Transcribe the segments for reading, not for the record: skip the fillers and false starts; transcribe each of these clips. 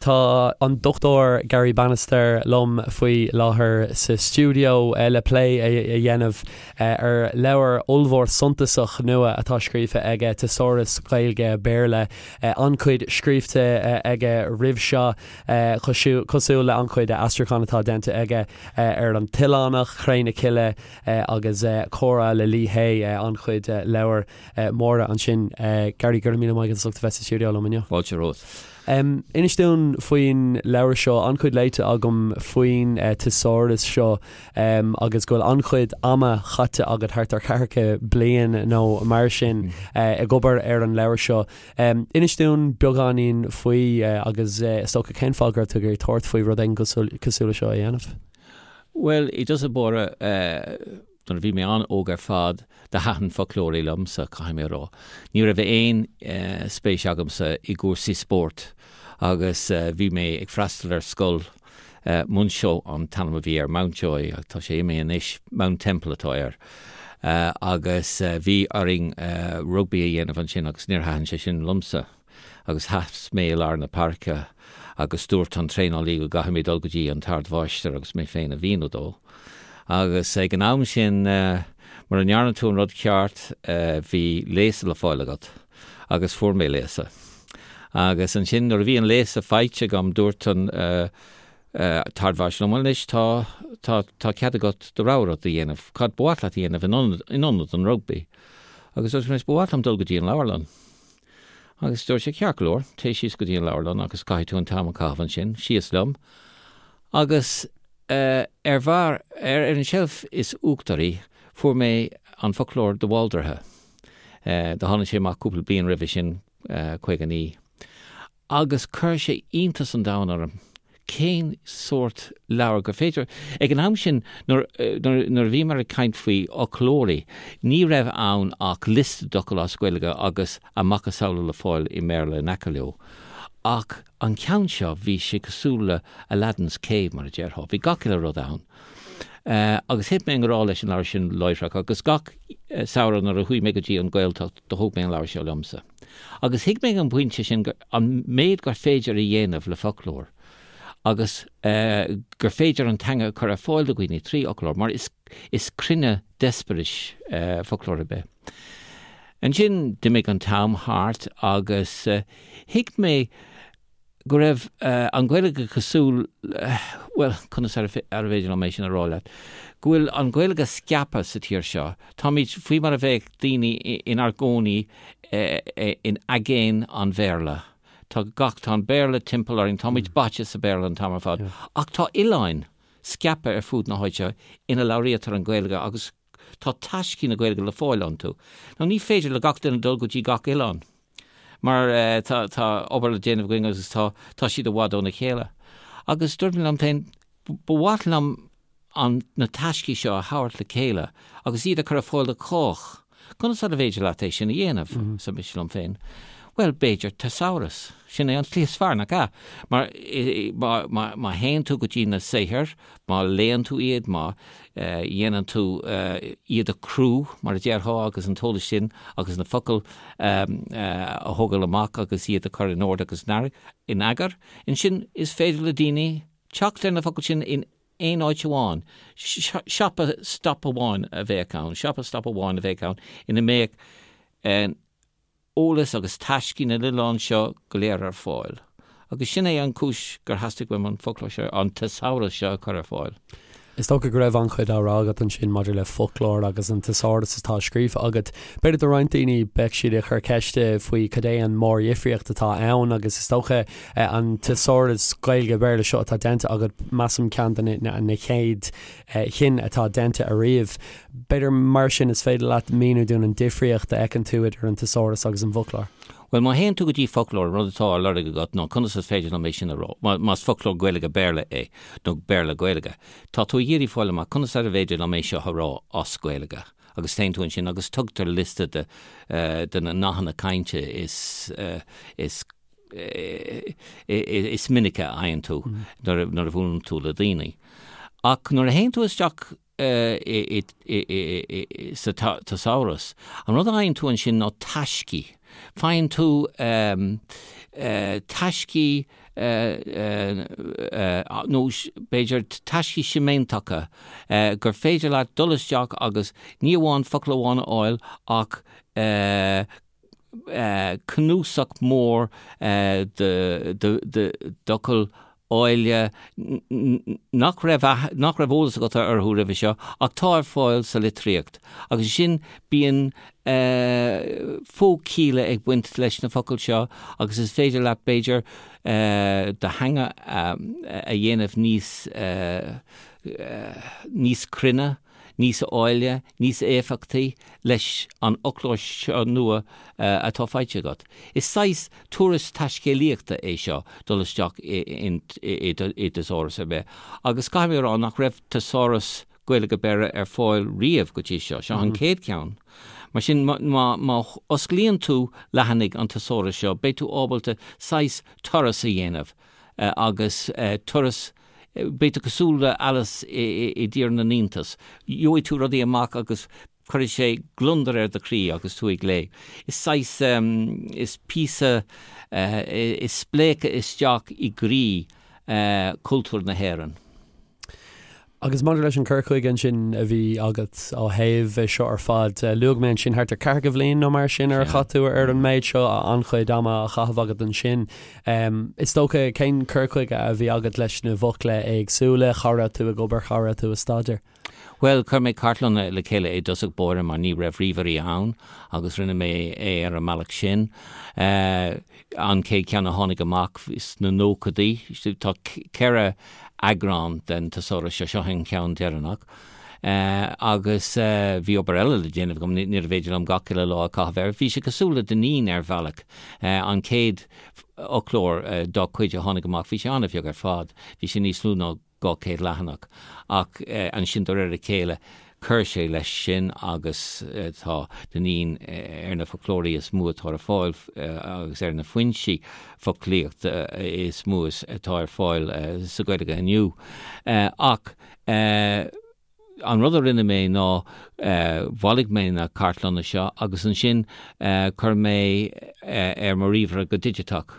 Tá an Dr Garry Bannister liom faoi láthair sa stiúideo le plé a dhéanamh ar leabhar ollmhór suntasach nua atá scríofa aige, Teasáras Gaeilge-Béarla. An-chuid scríofa aige roimh seo, cosúil le an-chuid aistriúchán atá déanta aige ar An tOileánach, Cré na Cille agus Comhrá le Lee Hay, an-chuid leabhar móra ansin. Garry, go raibh míle maith agat as ucht a bheith sa stiúideo liom inniu. Fáilte romhat. Inis dúinn faoin leabhar seo, an-chuid léite agam faoin teasáras seo agus go bhfuil an-chuid ama chaite agat, thart ar cheathracha bliain nó mar sin, ag obair ar an leabhar seo. Inis dúinn beagáinín faoi agus is dócha cén fáth go raibh tú ag iarraidh tabhairt faoi rud éigin cosúil le seo a dhéanamh? Bhuel, i dtosach báire, Nuair a bhí mé an-óg ar fad, do thaitin foclóirí liomsa, caithfidh mé a rá. Ní raibh aon spéis agamsa i gcúrsaí spóirt agus bhí mé ag freastal ar scoil, Muinseo an t-ainm a bhí air, Mountjoy, ach tá sé imithe anois, Mount Temple atá air. Agus bhí orainn rugbaí a dhéanamh ansin agus níor thaitin sé sin liomsa. agus sheas mé i lár na páirce agus dúirt an traenálaí go gcaithfidh mé dul go dtí an t-ardmháistir agus mé féin a mhíniú dó. Agus ag an am sin, mura ndearna tú an rud ceart, bhí léasadh le fáil agat. Agus fuair mé léasadh. Agus ansin nuair a bhí an léasadh faighte agam, dúirt an t-ardmháistir liom, bhuel anois tá, tá, tá cead agat do rogha rud a dhéanamh, cad ba mhaith leat a dhéanamh in ionad, in ionad an rugbaí? Agus dúirt mé, ba mhaith liom dul go dtí an leabharlann. Agus dúirt sé, ceart go leor, téigh síos go dtí an leabharlann agus caithfidh tú an t-am a chaitheamh ansin. Síos liom. Agus ar bharr, ar an tseilf is uachtaraí, fuair mé an foclóir de Bhaldraithe. Do tháinig sé amach cúpla bliain roimhe sin, 59. Agus chuir sé iontas an domhain orm cén sórt leabhar gur féidir. Ag an am sin, nuair a bhíomar ag caint faoi fhoclóirí, ní raibh ann ach liosta d'fhocail as Gaeilge agus a macasamhla le fáil i mBéarla in aice leo. Ach an ceann seo, bhí sé cosúil le Aladdin's Cave, mar a déarfá. Bhí gach uile rud ann. Agus thit mé i ngrá leis an leabhar sin láithreach agus gach samhradh nuair a chuaigh mé go dtí an Ghaeltacht, do thóg mé an leabhar seo liomsa. Agus thuig mé ag an bpointe sin an méid gur féidir a dhéanamh le foclóir agus gur féidir an teanga a chur ar fáil do dhaoine trí fhoclóir, mar is is cruinne d'eispéiris foclóir ar bith. Ansin d'imigh an t-am thart agus thuig mé go raibh an Ghaeilge cosúil, bhuel, conas arbh fhéidir liom é sin a rá leat, go bhfuil an Ghaeilge scaipthe sa tír seo. Táimid faoi mar a bheadh daoine inár gcónaí in aigéan an Bhéarla. Tá gach, tá an Béarla timpeall orainn, táimid báite sa Bhéarla an t-am ar fad. Ach tá oileáin scaipthe ar fud na háite ina labhraítear an Ghaeilge agus tá taiscí na Gaeilge le fáil iontu. Now ní féidir le gach duine dul go dtí gach oileán mar tá tá obair le déanamh againn agus tá tá siad i bhfad óna chéile. Agus dúirt mé liom féin, ba mhaith liom an na taiscí seo a thabhairt le chéile agus iad a chur ar fáil do chách. Conas arbh fhéidir leat é sin a dhéanamh? arsa mise liom féin. Bhuel, b'fhéidir teasáras. Sin é an tslí is fearr, nach ea? Mar má théann tú go dtí na saothair, má léann tú iad, má dhéanann tú iad a chrú, mar a déarfá, agus an t-eolas sin agus na focail a thógáil amach agus iad a chur in ord agus in eagar, ansin is féidir le daoine teacht ar na focail sin in aon áit amháin. Siopa stop amháin a bheadh ann, siopa stop amháin a bheadh ann ina mbeadh eolas agus taiscí na n-oileán seo go léir ar fáil. Agus sin é an chúis gur theastaigh uaim an foclóir seo, an teasáras seo a chur ar fáil. Is dócha go raibh an-chuid á rá agat ansin maidir le foclóir agus an teasáras atá scríofa agat. B'fhéidir do roinnt daoine beidh siad ag cur ceiste faoi cad é an mórdhifríocht atá ann agus is dócha an teasáras Gaeilge-Béarla seo atá déanta agat, measaim ceann de na chéad chinn atá déanta ariamh. B'fhéidir mar sin is féidir leat míniú dúinn an difríocht a fheiceann tú idir an teasáras agus an bhfoclóir. Bhuel, má théann tú go dtí foclóir, an rud atá á lorg agat ná conas is féidir liom é sin a rá, más foclóir Gaeilge-Béarla é, nó Béarla-Gaeilge, tá tú ag iarraidh fáil amach conas arbh fhéidir liom é seo a rá as Gaeilge. Agus téann tú ansin agus tugtar liosta de de na nathanna cainte is is is minice a fhaigheann tú nuair a nuair a bhuaileann tú le daoine. Ach nuair a théann tú isteach sa teasáras. An rud a fhaigheann tú ansin ná taiscí. Faigheann tú taiscí. nó b'fhéidir taiscí séimeantacha gur féidir leat dul isteach agus ní amháin focal amháin a fháil ach cnuasach mór d'fhocail áille nach raibh nach raibh eolas agat orthu roimhe seo ach tá ar fáil sa litríocht. Agus ansin bíonn fo-chialla ag baint leis na focail seo agus is féidir leat b'fhéidir do theanga a dhéanamh níos níos cruinne, níos áille, níos éifeachtaí leis an fhoclóir seo nua atá faighte agat. Is saghas turas taiscéalaíochta é seo dul isteach i dteasáras ar bith agus caithfidh mé a rá nach raibh teasáras Gaeilge-Béarla ar fáil riamh go dtí seo. Seo an chéad cheann. Mar sin má osclaíonn tú leathanaigh an teasárais seo beidh tú ábalta saghas turas a dhéanamh agus turas Beidh tú cosúil le Alice i dTír na nIontas. Gheobhaidh tú rudaí amach agus cuirfidh sé gliondar ar do chroí agus tú ag léamh. Is saghas, is píosa, is spléachadh isteach i gcroí chultúr na hÉireann. Agus maidir leis an cur chuige ansin a bhí agat ó thaobh é seo ar fad, luaigh mé ansin thart ar ceathracha bhliain nó mar sin ar chaith tú ar an méid seo, an-chuid ama á chaitheamh agat ansin. Is dócha, cén cur chuige a bhí agat leis na bhfocla éagsúla, cá raibh tú ag obair, cá raibh tú ag staidéar? Bhuel, chuir mé cartlanna le chéile i dtosach báire mar ní raibh ríomhairí ann agus rinne mé é ar an mbealach sin. An chéad cheann a tháinig amach sna nóchaidí, tá 4 eagrán den teasáras seo, seo an ceann deireanach. Agus bhí obair eile le déanamh agam, níorbh fhéidir liom gach uile lá a chaitheamh air. Bhí sé cosúil le Dineen ar bhealach, an chéad fhoclóir dá chuid a tháinig amach, bhí sé an-bheag ar fad, bhí sé níos lú ná 200 leathanach. Ach ansin de réir a chéile chuir sé leis sin agus tá Dineen ar na foclóirí is mó atá ar fáil agus ar na foinsí foclaíochta is mó atá ar fáil sa Ghaeilge inniu. Ach an rud a rinne mé ná bhailigh mé na cartlanna seo agus ansin chuir mé ar mo ríomhaire go digiteach.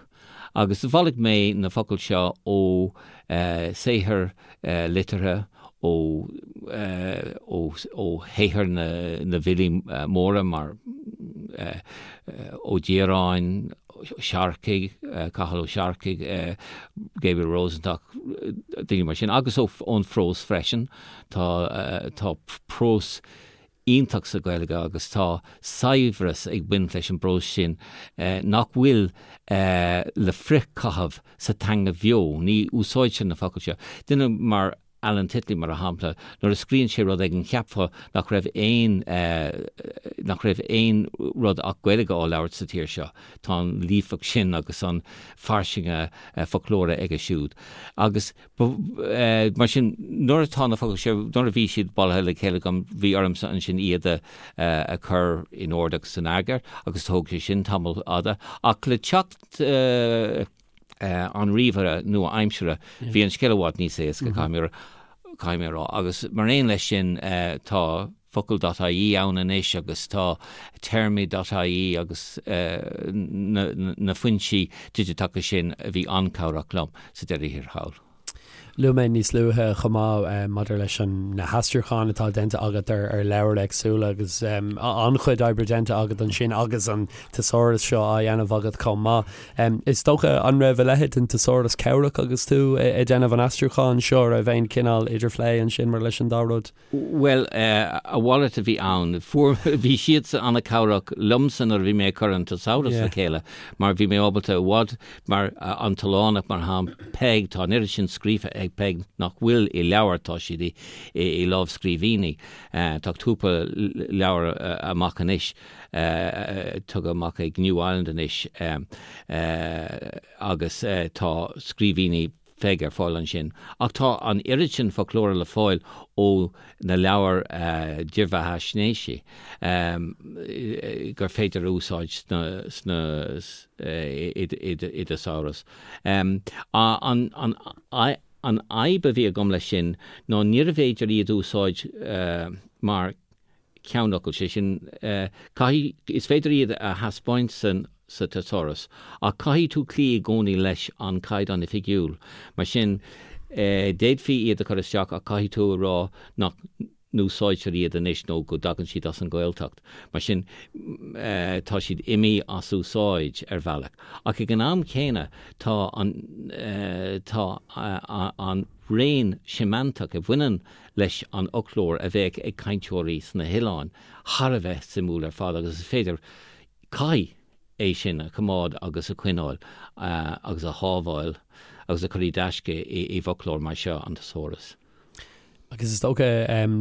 Agus bhailigh mé na focail seo ó saothair liteartha, ó ó shaothair na bhfilí móra mar Ó Direáin, Searcaigh, Cathal Ó Searcaigh, Gabriel Rosenstock, daoine mar sin, agus ón phrós freisin. Tá tá prós iontach sa Ghaeilge agus tá saibhreas ag baint leis an bprós sin nach bhfuil le frithchaitheamh sa teanga bheo. Ní úsáidtear na focail seo. Duine mar Alan Titley, mar shampla, nuair a scríonn sé rud éigin cheapfá nach raibh aon nach raibh aon rud ach Gaeilge á labhairt sa tír seo. Tá an líofacht sin agus an fairsinge foclóra aige siúd. Agus Mar sin, nuair atá na focail seo, nuair a bhí siad bailithe le chéile agam, bhí ormsa ansin iad a chur in ord agus in eagar agus thóg sé sin tamall fada. Ach le teacht an ríomhaire nua-aimseartha, bhí an scéal i bhfad níos éasca, caithfidh mé a rá. Agus mar aon leis sin, tá focal dot ie ann anois agus tá téarmaí dot ie agus na foinsí digiteacha sin a bhí an-chabhrach liom sa deireadh thiar thall. Luaigh mé níos luaithe chomh maith maidir leis an na haistriúcháin atá déanta agat ar ar leabhair éagsúla agus an-chuid oibre déanta agat ansin agus an teasáras seo á dhéanamh agat chomh maith. Is dócha an raibh a leithéid den teasáras cabhrach agus tú ag déanamh an aistriúcháin seo, raibh aon chineál idirphlé ansin mar leis an dá rud? Bhuel, a mhalairt a bhí ann. Fuair, bhí siadsan an-chabhrach liomsa nuair a bhí mé ag cur an teasáras le chéile mar bhí mé ábalta i bhfad, mar an tOileánach mar shampla, Peig, tá an oiread sin scríofa ag Peig nach bhfuil i leabhar, tá siad i, i lámhscríbhinní. Tá cúpla leabhar amach anois, tugtha amach ag New Island anois agus tá scríbhinní, Pheig ar fáil ansin. Ach tá an oiread sin foclóra le fáil ó na leabhair dírbheathaisnéisí gur féidir a úsáid sna i dteasáras. An fhadhb a bhí agam leis sin ná níorbh fhéidir iad a úsáid mar cheannfhocail, sé sin, caithfidh, is féidir iad a thaispeáint san. sa teasáras, ach caithfidh tú cloí i gcónaí leis an Caighdeán Oifigiúil. Mar sin, d'fhéadfaí iad a chur isteach ach caithfidh tú a rá nach n-úsáidtear iad anois nó go dtagann siad as an Ghaeltacht. Mar sin, tá siad imithe as úsáid ar bhealach. Ach ag an am chéanna, tá an tá an raon séimeantach a bhaineann leis an fhoclóir a bheadh ag cainteoirí sna hoileáin thar a bheith suimiúil ar fad agus is féidir Caithfidh é sin a choimeád agus a choinneáil agus a shábháil agus a chur i dtaisce i bhfoclóir mar seo, an Teasáras. Agus is dócha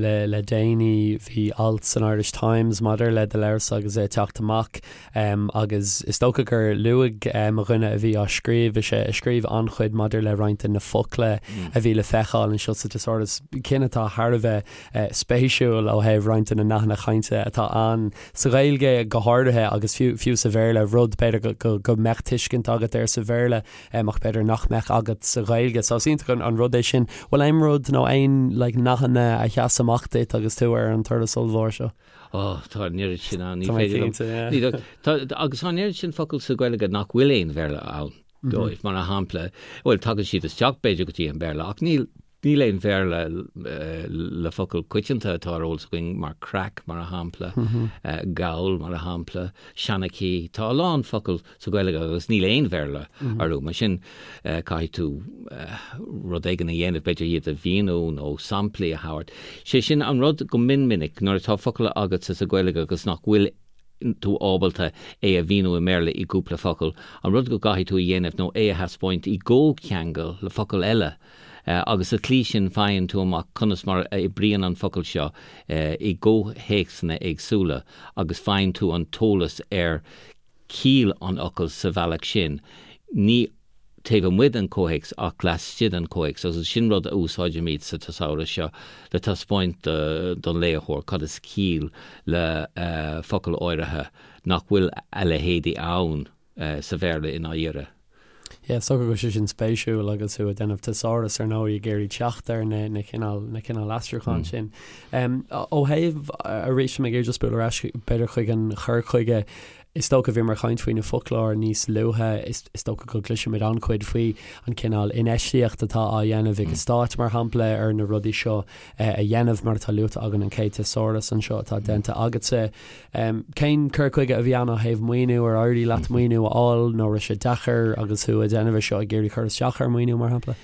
le déanaí bhí alt san Irish Times maidir le do leabharsa agus é ag teacht amach agus is dócha gur luaigh mo dhuine a bhí á scríobh, is é a scríobh an-chuid maidir le roinnt de na focla a bhí le feiceáil anseo sa Teasáras, cinn atá thar a bheith spéisiúil ó thaobh roinnt de na nathanna cainte atá ann. Sa Ghaeilge go háirithe, agus fiú fiú sa Bhéarla, rud b'fhéidir go go mbeadh tuiscint agat air sa Bhéarla ach b'fhéidir nach mbeadh agat sa Ghaeilge. So is iontach an rud é sin. Bhfuil aon rud nó aon like nathanna a sheas amach duit agus tú ar an turas ollmhór seo? Oh, tá an oiread sin ann, ní féidir liom. Ní tá agus tá an oiread sin focal sa Ghaeilge nach bhfuil aon Bhéarla ann dóibh, mar a shampla, bhuel tagann siad isteach b'fhéidir go dtí an Béarla ach níl Níl aon Bhéarla le focal coitianta atá ar eolas againn mar craic, mar a shampla, gabhal, mar a shampla, seanchaí. Tá a lán focal sa Ghaeilge agus níl aon Bhéarla orthu. Mar sin, caithfidh tú rud éigin a dhéanamh, b'fhéidir iad a mhíniú nó samplaí a thabhairt. Sé sin an rud go mion minic nuair atá focal agatsa sa Ghaeilge agus nach bhfuil tú ábalta é a mhíniú i mBéarla i gcúpla focal, an rud go gcaithfidh tú a dhéanamh nó é a thaispeáint i gcomhcheangal le focal eile. agus sa tslí sin faigheann tú amach conas mar a oibríonn an focal seo i gcomhthéacsanna éagsúla agus faigheann tú an t-eolas ar chiall an fhocail sa bhealach sin, ní taobh amuigh den chomhthéacs ach laistigh den chomhthéacs agus sin rud a úsáidimid sa teasáras seo le taispeáint don léitheoir cad is ciall le focal áirithe nach bhfuil a leithéidí ann. sa Bhéarla i ndáiríre. Yeah, is dócha go bhfuil sé sin spéisiúil agus tú ag déanamh teasáras ar ndóigh ag iarraidh teacht ar na na cineál na cineál aistriúcháin sin. Ó thaobh arís mé ag iarraidh just bualadh ar ais b'fhéidir chuig an chur chuige is dócha bhíomar ag caint faoi na foclóir níos luaithe is is dócha go gcloisimid an-chuid faoi an cineál infheistíocht atá á dhéanamh ag an stáit mar shampla ar na rudaí seo a dhéanamh mar atá luaite againn an chéad teasáras anseo atá déanta agatsa. Cén cur chuige a bhí ann ó thaobh maoiniú? Ar éirigh leat maoiniú a fháil nó raibh sé deacair agus tú ag déanamh é seo ag iarraidh cur isteach ar mhaoiniú, mar shampla?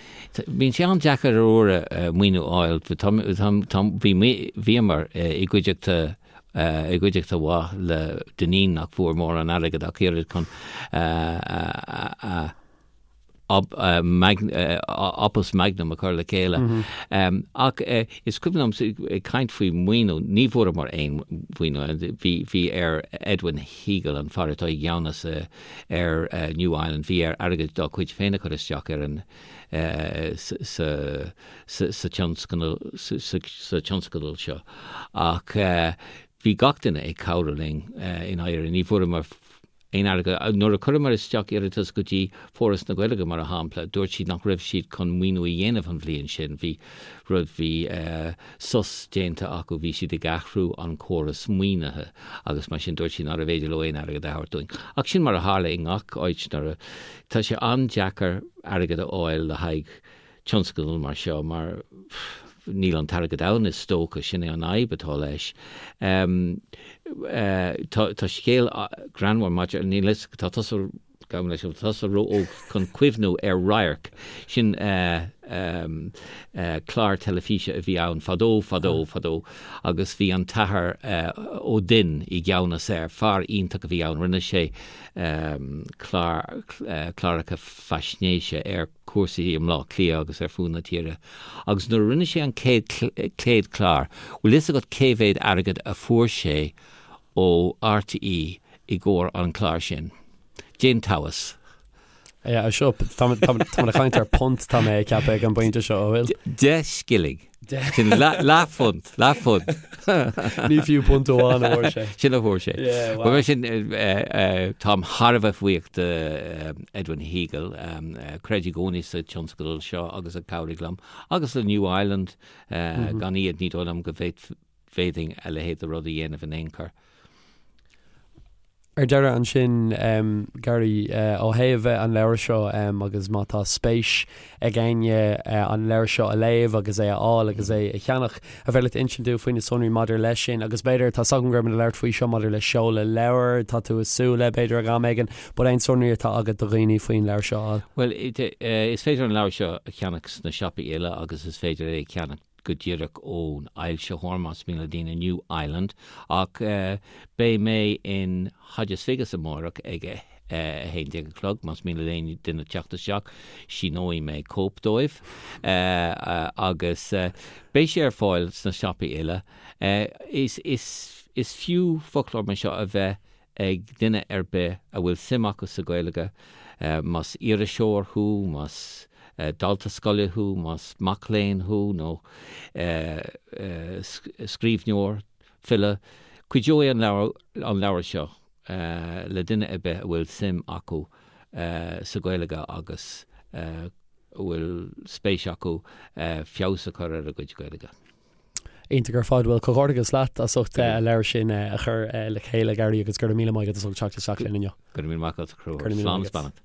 Bíonn sé an-deacair ar uaire maoiniú a fháil. Bhíomar i gcuideachta i gcuideachta mhaith le Dineen nach bhfuair mórán airgid ach oiread chun a opus magnum a chur le chéile. Ach is cuimhin liom ag caint faoi mhaoiniú, ní bhfuaireamar aon mhaoiniú. Bhí bhí ar Edwin Heagle, an fear atá i gceannas ar New Island, bhí air airgead dá chuid féin a chur isteach ar an sa sa tionscadal sa tionscadal seo. Ach bhí gach duine ag cabhrú linn i ndáiríre. Ní bhfuaireamar aon airgead. Nuair a chuireamar isteach iarratas go dtí Foras na Gaeilge, mar a shampla, dúirt siad nach raibh siad chun maoiniú a dhéanamh an bhliain sin. Bhí rud, bhí sos déanta acu, bhí siad ag athrú an córas maoinithe agus mar sin dúirt siad nárbh fhéidir leo aon airgead a thabhairt dúinn. Ach sin mar a tharla i ngach áit nuair a, tá sé an-deacair airgead a fháil le haghaidh tionscadal mar seo mar níl an t-airgead ann is dócha, sin é an fhadhb atá leis. Tá scéal greannmhar maidir, níl fhios, tá tusa, gabhaim leis, tá tusa ró-óg chun cuimhniú ar Radharc, sin clár teilifíse a bhí ann fadó, fadó, fadó agus bhí an tAthair Ó Duinn i gceannas air, fear iontach a bhí ann, rinne sé clár, cláracha faisnéise ar cúrsaí i mBleá Cliath agus ar fud na tíre. Agus nuair a rinne sé an chéad chéad chlár, bhfuil fhios agat cé mhéad airgead a fuair sé ó RTÉ i gcomhair an chláir sin? Déan tomhas. Yeah, seo, tá ag caint ar punt tá mé ag ceapadh ag an bpointe seo, an bhfuil? 10 scilling. Sin leathphunt, leathphunt. Ní fiú punt amháin a fuair sé. Sin a fuair sé. Yeah, wow. Mar sin, táim thar a bheith buíoch de Edwin Heagle, a chreid i gcónaí sa tionscadal seo agus a chabhraigh liom, agus le New Island, gan iad ní dóigh liom go bhféadfainn a leithéid de rud a dhéanamh in aon chor. Ar deireadh ansin, Gary, ó thaobh an leabhair seo agus má tá spéis ag éinne an leabhar seo a léamh agus é a fháil agus é a cheannach, an féidir leat insint dúinn faoi na sonraí maidir leis sin agus b'fhéidir, tá 's agam go raibh muid ag labhairt faoi seo maidir le seoladh leabhair, tá tú ag súil le b'fhéidir ag am éigin, but aon sonraí atá agat do dhaoine faoin leabhar seo a fháil? Bhuel, is féidir an leabhar seo a cheannach sna siopaí uile agus is féidir é a cheannach go díreach ón fhoilsitheoir, más mian le daoine, New Island, ach beidh mé in Hodges Figgis amárach ag a 11 a chlog, más mian le aon duine teacht isteach, síneoidh mé cóip dóibh, agus beidh sé ar fáil sna siopaí uile. Is fiú foclóir mar seo a bheith ag duine ar bith a bhfuil suim acu sa Ghaeilge, más iriseoir thú, más dalta scoile thú, más mac léinn thú nó scríbhneoir, file, cuideoidh an leabhar seo le duine ar bith a bhfuil suim acu sa Ghaeilge agus a bhfuil spéis acu feabhas a chur ar a gcuid Gaeilge. Iontach ar fad. Bhuel, comhghairdeachas leat as ucht an leabhar sin a chur le chéile, Gary, agus go raibh míle maith agat as ucht teacht isteach linn inniu. Go raibh míle maith agat, a Chonchúir. Slán is beannacht.